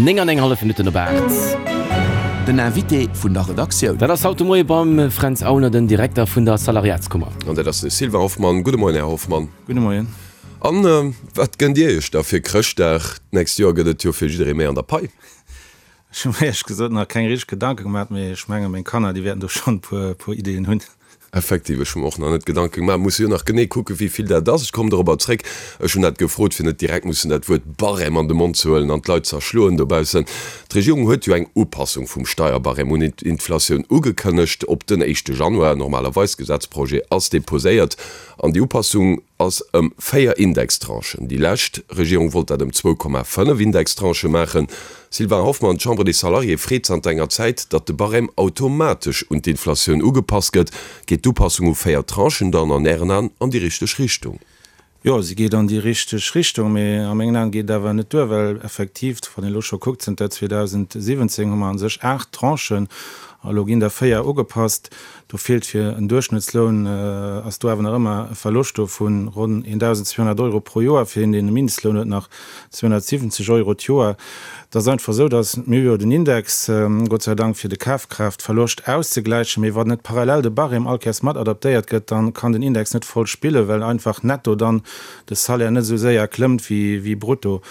9 an eng hallef Minutten op 8. Den Invité vun der Redaktioun. Dat ass haut de Moie beim Fränz Aulner, den Direkter vun der Salariatskummer. An dat ass de Sylvain Hoffmann. Gudde Moien, Här Hoffmann. Gudde Moien. An wat gënnt Dir Iech da fir Chrëschtdag? D'nächst Joer gëtt et jo fir jidderee méi an der Pai. Ech hu mir éierlech gesot nach keng richteg Gedanke gemaach, mee ech menge meng Kanner, déi wäerten do schonn e puer Ideeën hunn. Effektiv, ech hu mer och nach net Gedanke gemaach. Musse jo nach genee kucken, wéi vill dat ass. Ech kommen dorobber zréck. Ech hunn dat gefrot, fir net direkt mussen dat Wuert Barème an de Mond ze huelen an d'Leit z'erschloen dobaussen. D'Regierung huet jo eng Upassung vum Steierbarème un d'Inflatioun ugekënnegt op den éischte Januar. Normalerweis, Gesetzprojet ass deposéiert an déi Upassung ass ëm 4 Indextranchen. Déi lescht Regierung wollt dat ëm 2,5 Indextranchë maachen. Sylvain Hoffmann, D'Chambre des Salariés freet zanter enger Zäit, datt de Barème automatesch un d'Inflatioun ugepasst gëtt. Geet d'Upassung u 4 Tranchen dann an Ären An an déi richteg Richtung? Jo, se geet an déi richteg Richtung, mee a mengen Aen geet et awer net duer, well effektiv, wann een elo scho kuckt, zënter 2017 hu mer a sech 8 Tranchen a elo ginn der 4 ugepasst. Do feelt fir en Duerchschnëttsloun, ass do awer nach ëmmer e Verloscht do vu ronn 1.200 Euro pro Joer. Fir een, deen e Mindestloun huet, nach 270 Euro d'Joer. Et ass einfach esou, datt mir hu jo den Index, Gott sei Dank, fir de Kafkraaftverloscht auszegläichen, mee wann net parallel de Barème all Kéiers mat adaptéiert gëtt, da kann den Index net voll spillen, well einfach netto dann de Salaire net esou séier klëmmt wéi brutto.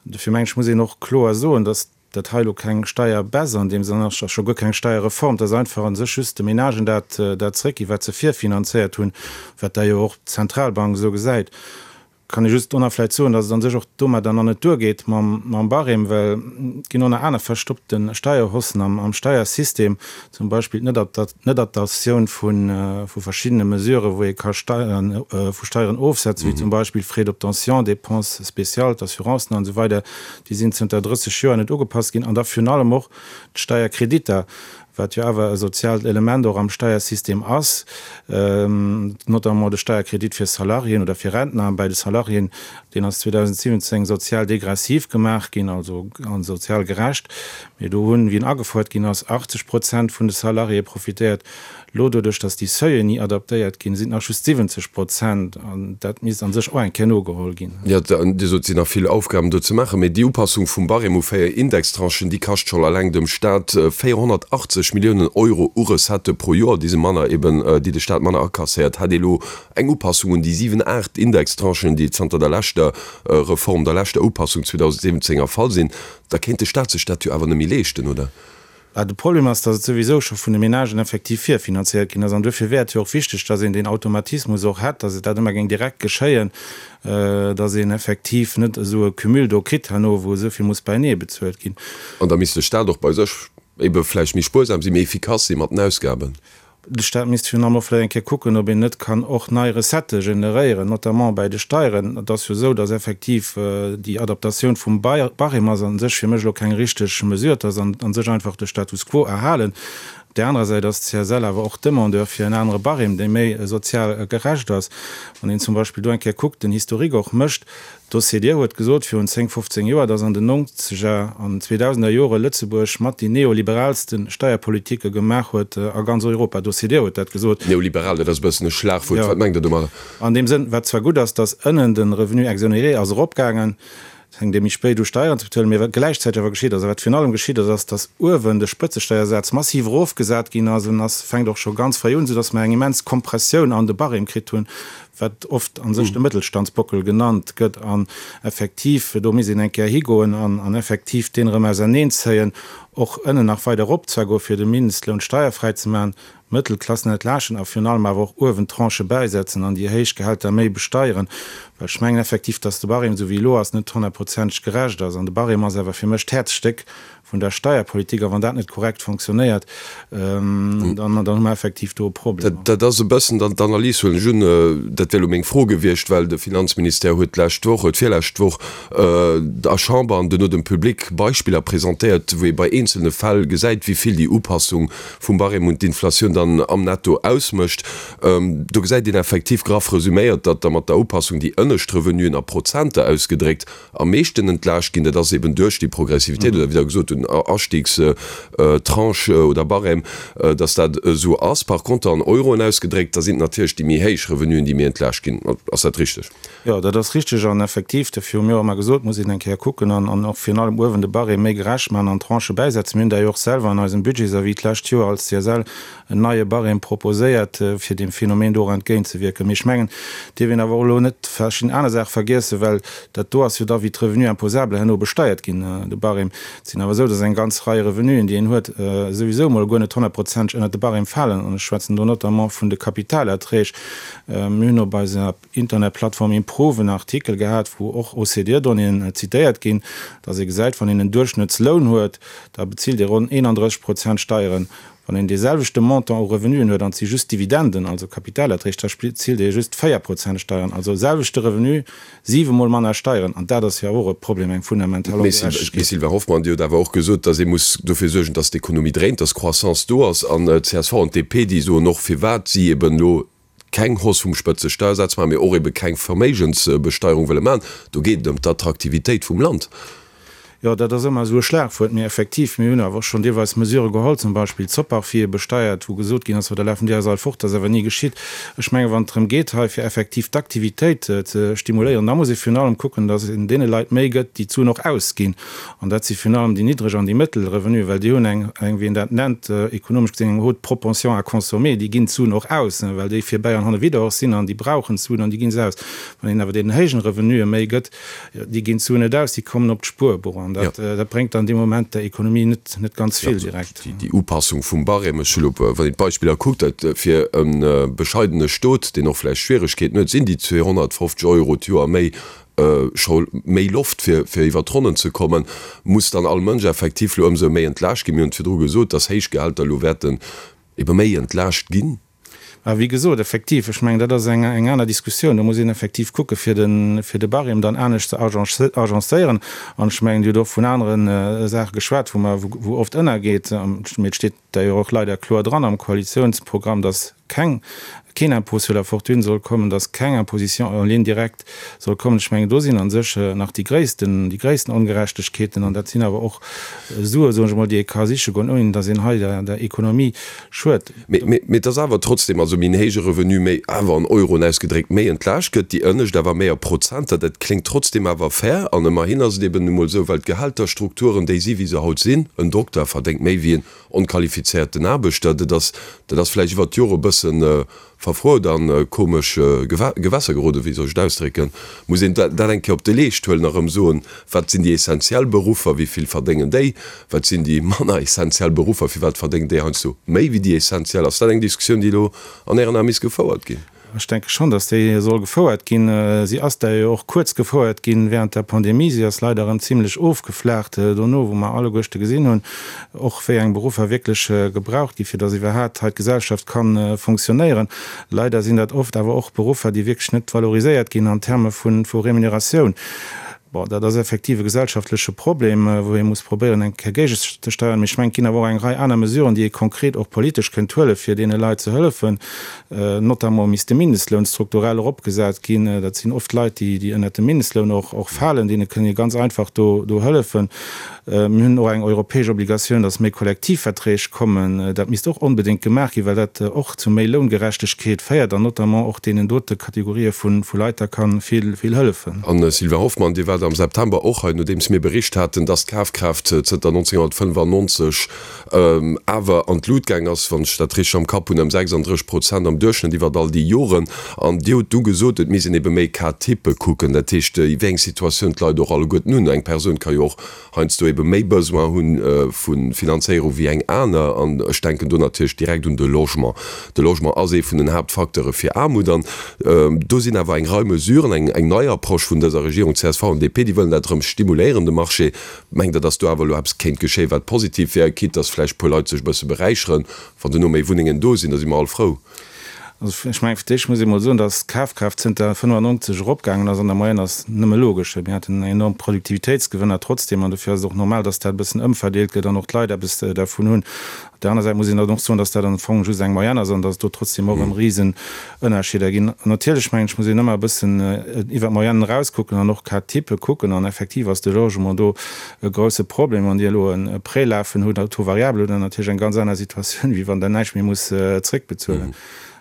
Dofir mengen ech, muss een och kloer soen, datt dat hei elo keng Steierbaisse an deem Sënn ass, a scho guer keng Steierreform, et ass einfach a sech just de Menagen dat dat zréckginn, wat se virfinanzéiert hunn, wat da jo och d'Zentralbank esou gesäit. Kann ee just do nach vläicht soen, datt et a sech och domadder nach net duergeet mam mam Barème, well et ginn och nach aner verstoppte Steierhossen am am Steiersystem, zum Beispill d'Netadaptatioun vu vu verschiddene Mesuren, wou ee ka Steieren vu Steieren ofsetzen, wéi zum Beispill Frais d'obtention, Dépenses spéciales, d'Assurancen an esou weider. Déi sinn zënter 30 Joer net ugepasst ginn. An da virun allem och d'Steierkreditter, wat jo awer e soziaalt Element och am Steiersystem ass, notamment de Steierkredit fir Salariéen oder fir Rentner. Bäi de Salariéen, deen ass 2017 sozial degressiv gemaach ginn, also sozial gerecht. Mee do hunn, wéi en agefouert ginn ass, 80 Prozent vun de Salariéë profitéiert. Elo, doduerch datt déi Seuillen ni adaptéiert ginn, sinn et nach just 70 Prozent. An dat misst a sech och eng Kéier nogeholl ginn. Jo, Dir sot, et sinn nach vill Aufgaben do ze maachen. Mee déi Upassung vum Barème u 4 Indextranchen, déi kascht schonn alleng dem Staat 480 Milliounen Euro u Recettë pro Joer, déi se manner eben, déi de Staat manner akasséiert. Hätt ee elo eng Upassung un déi 7, 8 Indextranchen, déi zanter der leschter Reform, der leschter Upassung 2017 erfall sinn, da kéint de Staat sech dat jo awer net méi leeschten, oder? Bah, de Problem ass, datt et souwisou scho vun de Menagen effektiv virfinanziert ginn ass. An duerfir wär et jo och wichteg, datt een deen Automatismus och hätt, datt et dat ëmmer géing direkt geschéien, datt een effektiv net esou e Cumul do kritt herno, wou esou vill muss beienee bezuelt ginn. An da misst de Staat och bei sech ebe vläicht méi spuersam sinn, méi efficace si mat den Ausgaben. De Staat misst virun allem och vläicht eng Kéier kucken, ob een net kann och nei Recettë generéieren, notamment bäi de Steieren. Et ass jo esou, datt effektiv déi Adaptatioun vum Barème ass a sech fir mech elo keng richteg Mesure. Et ass a sech einfach de Status quo erhalen. Op där anerer Säit ass d'CSL awer och Demandeur fir en anere Barème, dee méi sozial gerecht ass. Wann een zum Beispill do eng Kéier kuckt, den Historique och mécht, D'OCDE huet gesot virun 10, 15 Joer, datt an den nonzeger an zweedausender Jore Lëtzebuerg mat déi neoliberaalste Steierpolitike gemaach huet a ganz Europa. D'OCDE huet dat gesot. Neoliberal, dat ass e bëssen e Schlagwuert. Wat mengt Der domadder? An deem Sënn, wat zwar gutt ass, datt ënnen de Revenu exonéré ass eropgaangen, et fänkt ee méi spéit u Steieren ze bezuelen, mee wat gläichzäiteg awer geschitt ass a wat virun allem geschitt ass, ass, datt uewen de Spëtzesteiersaz massiv erofgesat ginn ass an ass, fänkt och scho ganz fréi un, soudatt mer eng immens Kompressioun an de Barème kritt hunn, wat oft a sech de Mëttelstandsbockel genannt gëtt, an effektiv, do misst een eng Kéier higoen an effektiv deen erëm auserneenzéien, och ënnen nach weider erop zwar goen, fir de Mindestloun steierfräi ze maachen, d'Mëttelklassen entlaaschten a virun allem awer och uewen d'Tranchë bäisetzen an déi héich Gehälter méi besteieren, well ech mengen effektiv, dass de Barème, esou wéi elo ass, net honnertprozenteg gerecht ass. An de Barème ass awer fir mech d'Häerzstéck vun der Steierpolitik, a wann dat net korrekt fonctionnéiert, dann hu mer effektiv do e Problem. Dat ass e bëssen dann d'Analys, huelen ech un. Dat wär elo meng Fro gewiescht, well de Finanzministère huet d'lescht Woch, huet virlescht Woch der Chamber an duerno dem Public Beispiller presentéiert, wou ee bei eenzelne Fäll gesäit, wéi vill déi Upassung vum Barème un d'Inflatioun dann am Netto ausmécht. Do gesäit een effektiv, graff resüméiert, datt da mat der Upassung déi ënnescht. ënnescht Revenuen a Prozenter ausgedréckt am meeschten entlaascht ginn. Dat ass eben duerch déi Progressivitéit oder wéi Der gesot hutt, den Astiegstranche oder Barème, dass dat esou ass. Par conter an Euroen ausgedréckt, da sinn et natierlech déi méi héich Revenuen, déi méi entlaascht ginn. Ass dat richteg? Jo, dat ass richteg an effektiv, dofir hu mir och ëmmer gesot, muss een eng Kéier kucken an an och virun allem uewen de Barème méi gerecht maachen an Tranchë bäisetzen. Mir hunn dat jo och selwer an eisem Budgetsavis d'lescht Joer als CSL en neie Barème proposéiert, fir deem Phänomen do och entgéintzewierken. Mee ech mengen, et dierf een awer och elo net verschidden aner Saache vergiessen, well dat do ass jo da wéi d'Revenus imposables herno besteiert ginn, de Barème. Et sinn awer esou, dass eng ganz Rei Revenuen, déi een huet, souwisou emol guer net honnertprozenteg ënnert de Barème falen. An ech schwätzen do notamment vun de Kapitalerträg. Mir hunn op eiser Internetplattform Improve en Artikel gehat, wou och OCDE-Donnéeën zitéiert ginn, dass ee gesäit, wann een en Duerchschnëttsloun huet, da bezilt ee ronn 31 Prozent Steieren. Wann een dee selwechte Montant u Revenuen huet an et si just Dividenden, also Kapitalerträg, da bezilt ee just 4 Prozent Steieren. Also selwechte Revenu, siwe Mol manner Steieren. An dat ass jo och e Problem, eng fundamental Ongerechtegkeet. Mme Sylvain Hoffmann, Dir hutt awer och gesot, dass ee muss dofir suergen, dass d'Ekonomie dréint, dass Croissance do ass. An csv an d'DP, déi soen och, firwat si eben elo keng Hausse vum Spëtzesteiersaz maachen, mee och ebe keng Verméigensbesteierung wëlle maachen. Do geet et ëm d'Attraktivitéit vum Land. Jo, dat ass ëmmer esou e Schlagwuert. Mee effektiv, mir hunn awer och schonn deelweis Mesurë geholl, zum Beispill d'Soparfie besteiert, wou gesot ginn ass, jo da lafen déi eis all fort. Dat ass awer ni geschitt. Ech mengen, wann et drëm geet hei fir effektiv d'Aktivitéit ze stimuléieren, da muss ee virun allem kucken, datt een deene Leit méi gëtt, déi d'Suen och ausginn. An dat si virun allem déi niddreg an déi mëttel Revenuen, well déi hunn eng, eng, wéi een dat nennt, ekonomesch gesinn, eng haute propension à consommer. Déi ginn d'Suen och aus, well déi virbäi an hannewidder och sinn an déi brauchen d'Suen an déi gi se aus. Wann een awer deenen héijen Revenuen méi gëtt, déi ginn d'Suen net aus, déi kommen op d'Spuerbuch an dat, dat bréngt dann dee Moment der Ekonomie net, net ganz vill direkt. Déi Upassung vum Barème, ech hu lo, wann een d'Beispiller kuckt, dat fir e bescheidene Stot, deen och vläicht Schwieregkeeten huet, sinn déi 250 Euro d'Joer méi scho méi Loft fir fir iwwer d'Ronnen ze kommen, muss dann all Mënsch effektiv lo ëmsou méi entlaascht ginn. Mir hunn et virdru gesot, dass héich Gehälter elo wäerten ebe méi entlaascht ginn. Mä wéi gesot, effektiv, ech mengen, dat ass eng eng aner Diskussioun. Do muss een effektiv kucke fir de fir de Barème dann anescht ze agencéieren. An ech mengen, Dir hutt och vun anere Saache geschwat, wou mer wou oft ënnergeet, mee et steet d'ailleurs och leider kloer dran am Koalitionsprogramm, dass keng, keen Impôt sur la fortune soll kommen, dass keng Imposition en ligne directe soll kommen. Ech mengen, do sinn a sech nach déi gréissten, déi gréissten Ongerechtegkeeten. An dat sinn awer och Sue, soen ech emol, déi ee ka siche goen, ouni dass een hei der, der Ekonomie schuet. Mee, mee, mee et ass awer trotzdem, also méi en héije Revenu, méi awer an Euroen ausgedréckt, méi entlaascht gëtt, déi ënnescht awer méi a Prozenter. Dat kléngt trotzdem awer fair. An ëmmerhin ass et eben nu mol esou, well d'Gehälterstrukturen déi si wéi se haut sinn, en Dokter verdéngt méi wéi en Onqualifizéierten Aarbechter, dat ass, dat ass vläicht iwwert d'Jore e bësse verfruet a komesch Gewässer geroden, wéi soll ech et ausdrécken, muss een dat eng Kéier op de Leescht huelen a rëm soen, wat sinn déi essentiell Beruffer, wéi vill verdéngen déi, wat sinn déi manner essentiell Beruffer, firwat verdéngen déi heiansdo méi wéi déi essentiell? Ass dat eng Diskussioun, déi elo an Ären Ae misst gefouert ginn? Ech denke schonn, datt déi soll gefouert ginn. Si ass der jo och kuerz gefouert ginn während der Pandemie. Si ass leider erëm zimlech ofgeflaacht dono, wou mer alleguerchte gesinn hunn, och wéi eng Beruffer wierklech gebraucht ginn, fir datt iwwerhaat hei d'Gesellschaft ka fonctionnéieren. Leider sinn dat oft awer och Beruffer, déi wierklech net valoriséiert ginn an Terme vu Remuneratioun. Bon, dat ass effektiv e gesellschaftleche Problem, wou ee muss probéieren, eng Kéier géigezesteieren. Mee ech mengen, et ginn awer och eng Rei aner Mesuren, déi ee konkret och politesch kënnt huelen, fir deene Leit ze hëllefen. Notamment misst de Mindestloun strukturell eropgesat ginn. Dat sinn oft Leit, déi, déi ënnert dem Mindestloun och, och falen. Deene kënnt ee ganz einfach do, do hëllefen. Mir hunn och eng europäesch Obligatioun, dass méi Kollektivverträg kommen. Dat misst och onbedéngt gemaach ginn, well dat och zu méi Loungerechtegkeet féiert an notamment och deenen dote Kategorië vu Leit da ka vill, vill hëllefen. An, Sylvain Hoffmann, Dir waart am September och hei, nodeems mir bericht haten, dass d'Kafkraaft zënter 1995 awer an d'Lut gaang ass, wann ech dat richteg am Kapp hunn, ëm 36 Prozent am Duerchschnëtt iwwert all déi Joren. An Dir hutt du gesot, et misst een ebe méi Cas-type kucken, dat heescht, wéi eng Situatioun d'Leit och alleguerten hunn. Eng Persoun ka jo och heiansdo ebe méi Besoin hu vu Finanzéierung wéi eng aner. An ech denken do natierlech direkt un de Logement. De Logement ass ee vun den Haaptfacteure fir Aarmut. An do sinn awer eng Rei Mesuren, eng nei Approche vun dëser Regierung, csv an DP, déi wëllen dat erëm stimuléieren, de Marché. Mengt Der, datt do awer elo eppes kéint geschéien, wat positiv wär, quitte datt vläicht e puer Leit sech e bësse beräicheren, wann duerno méi Wunnengen do sinn? Da si mer all frou. Also ech mengen, fir d'éischt muss ee mol soen, datt d'Kafkraaft zënter 95 eropgaangen ass an der Moyenne ass nëmme logesch. Mir haten enorm Produktivitéitsgewënner trotzdeem an dofir ass et och normal, datt dat e bëssen ëmverdeelt gëtt an och d'Leit eppes dervun hunn. Op där aner Säit muss een dann och soen, datt dat am Fong just eng Moyenne ass an datt et do trotzdeem och erëm Risenënnerscheeder ginn. An natierlech mengen ech, muss een ëmmer e bëssen iwwer d'Moyennen erauskucken an och Cas type kucken an effektiv ass de Logement do e grousse Problem. Wann Dir elo e Prêt lafen hutt, à taux variable, hutt Der natierlech eng ganz aner Situatioun, wéi wann Der näischt méi musst zréckbezuelen.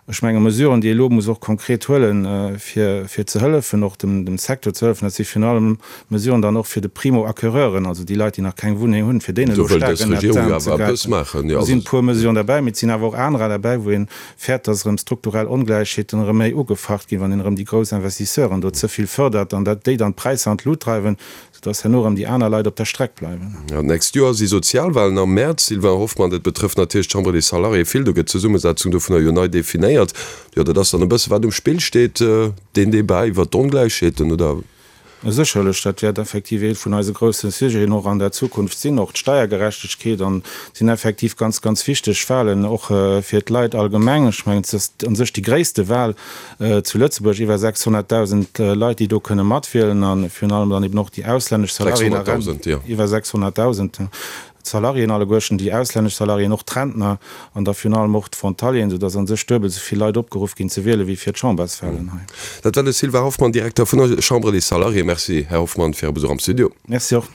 Ech menge Mesuren, déi ee elo muss och konkret huelen, fir fir ze hëllefen, och dem dem Secteur ze hëllefen, dat si virun allem Mesuren dann och fir de Primo-acquéreuren, also déi Leit, déi nach keng Wunneng hunn, fir deenen elo staark ënnert d'Aarm ze gräifen. Do sinn e puer Mesuren derbäi, mee et sinn awer och anerer derbäi, wou ee fäert, dass erëm strukturell Ongläichheeten erëm méi ugefacht ginn, wann een erëm déi grouss Investisseuren do ze vill fërdert an dat déi dann d'Präisser an d'Lut dreiwen. Soudass herno erëm déi aner Leit op der Streck bleiwen. Jo, d'nächst Joer si Sozialwahlen am Mäerz. Sylvain Hoffmann, Dat betrëfft natierlech d'Chambre des Salariés vill. Do gëtt d'Zesummesetzung dovunner jo nei definéiert. Jo, dat ass dann e bësse wat um Spill steet, deen Debat iwwert d'Ongläichheeten, oder? Sécherlech, dat wäert effektiv ee vun eise grousse Sujeten och an der Zukunft sinn, och d'Steiergerechtegkeet. An et sinn effektiv ganz, ganz wichteg Wahlen och fir d'Leit allgemeng. Ech mengen, et ass u sech déi gréisste Wahl Zu Lëtzebuerg iwwer 600.000 Leit, déi do kënne matwielen, a virun allem dann eben och déi auslännesch Salariéen a Rentner, iwwer 600.000 Salariéen alleguerten, déi auslännesch Salariéen, och d'Rentner an da virun allem och d'Frontalieren, soudass a sech duebel esou vill Leit opgeruff ginn ze wielen, wéi fir d'Chamberswalen hei. Dat war de Sylvain Hoffmann, Direkter vun der Chambre des Salariés. Merci, Här Hoffmann, fir Är Besuch am Studio. Merci och.